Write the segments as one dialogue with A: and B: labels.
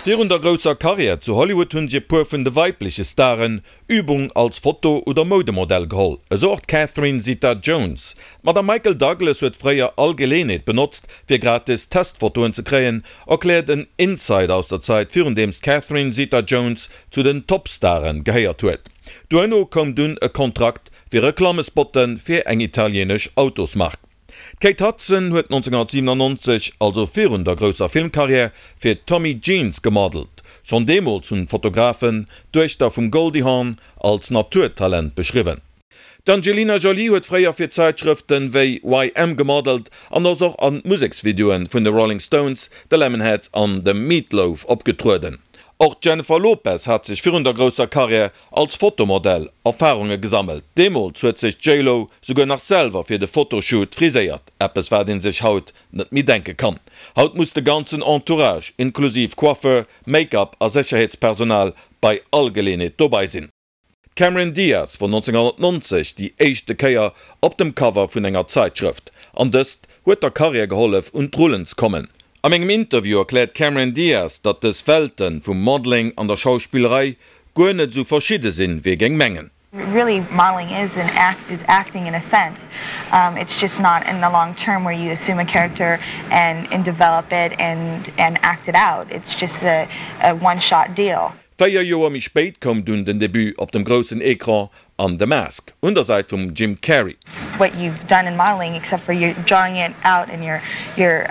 A: Virun der grousser Karriär zu Hollywood hunn sech e puer vun de weibleche Staren Übung als Foto oder Moudemodell geholl. Esou och d'Catherine Zeta-Jones. D'Madame Michael Douglas huet fréier all Geleenheet benotzt, fir gratis Testfotoen ze kréien, erkläert en Insider aus der Zait virun deems d'Catherine Zeta-Jones zu den Topstaren gehéiert huet. Duerno koum dunn e Kontrakt fir Reklammespotte fir eng italienesch Autosmark. D'Kate Hudson huet 1997, also virun der grousser Filmkarriär, fir Tommy Jeans gemodelt. Schonn deemools hunn d'Fotografen d'Duechter vum Goldie Hawn als Naturtalent beschriwwen. D'Angelina Jolie huet fréier fir Zäitschrëften wéi YM gemodelt an ass och an Museksvideoen vun de Rolling Stones, de Lemonheads an dem Meat Loaf opgetrueden. Och d'Jennifer Lopez hat sech virun der grousser Karriär als Fotomodell Erfarunge gesammelt. Deemools huet sech d'J-Lo souguer nach selwer fir de Fotoshoot friséiert, eppes wat een sech haut net méi denke kann. Haut muss de ganzen Entourage, inklusiv Coiffeur, Make-up a Sécherheetspersonal bei all Geleenheet dobei sinn. D'Cameron Diaz wor 1990 déi éischte Kéier op dem Cover vun enger Zaitschrëft, an dëst huet der Karriär gehollef un d'Rullen ze kommen. A mengem Interview erkläert d'Cameron Diaz, datt dës Welten vum Modeling an der Schauspillerei guer net esou verschidde sinn, wéi ee géing mengen.
B: Really modeling is an act is acting in a sense. It's just not in the long term where you assume a character and and develop it and and act it out. It's just a a one shot deal.
A: 4 Joer méi spéit koum dunn den Debut op dem groussen Ecran an The Mask, un der Säit vum Jim Carrey.
B: What you've done in modeling except for you're drawing it out and you're you're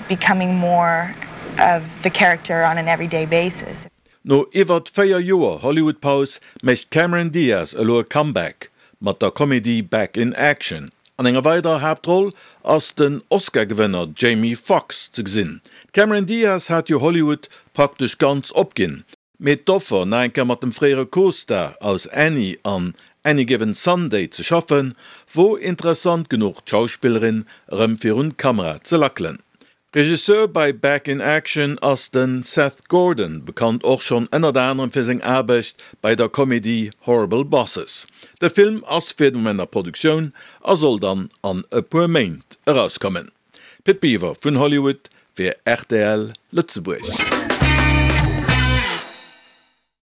B: becoming more of the character on an everyday basis.
A: No iwwert 4 Joer Hollywood-Paus mécht d'Cameron Diaz elo e Comeback mat der Komedie Back in Action. An enger weiderer Haaptroll ass den Oscar-Gewënner Jamie Foxx ze gesinn. D'Cameron Diaz hat jo Hollywood praktesch ganz opginn, mee d'Offer nach eng Kéier mat dem fréiere Co-Star aus Annie an Any Given Sunday ze schaffen, wor interessant genuch d'Schauspillerin erëm virun d'Kamera ze lackelen. Regisseur bei Back in Action ass de Seth Gordon, bekannt och schonn ënnert anerem fir seng Aarbecht bei der Komedie Horrible Bosses. De Film ass fir de Moment a Produktioun a soll dann an e puer Méint erauskommen. Pit Biwer vun Hollywood fir rtl Lëtzebuerg.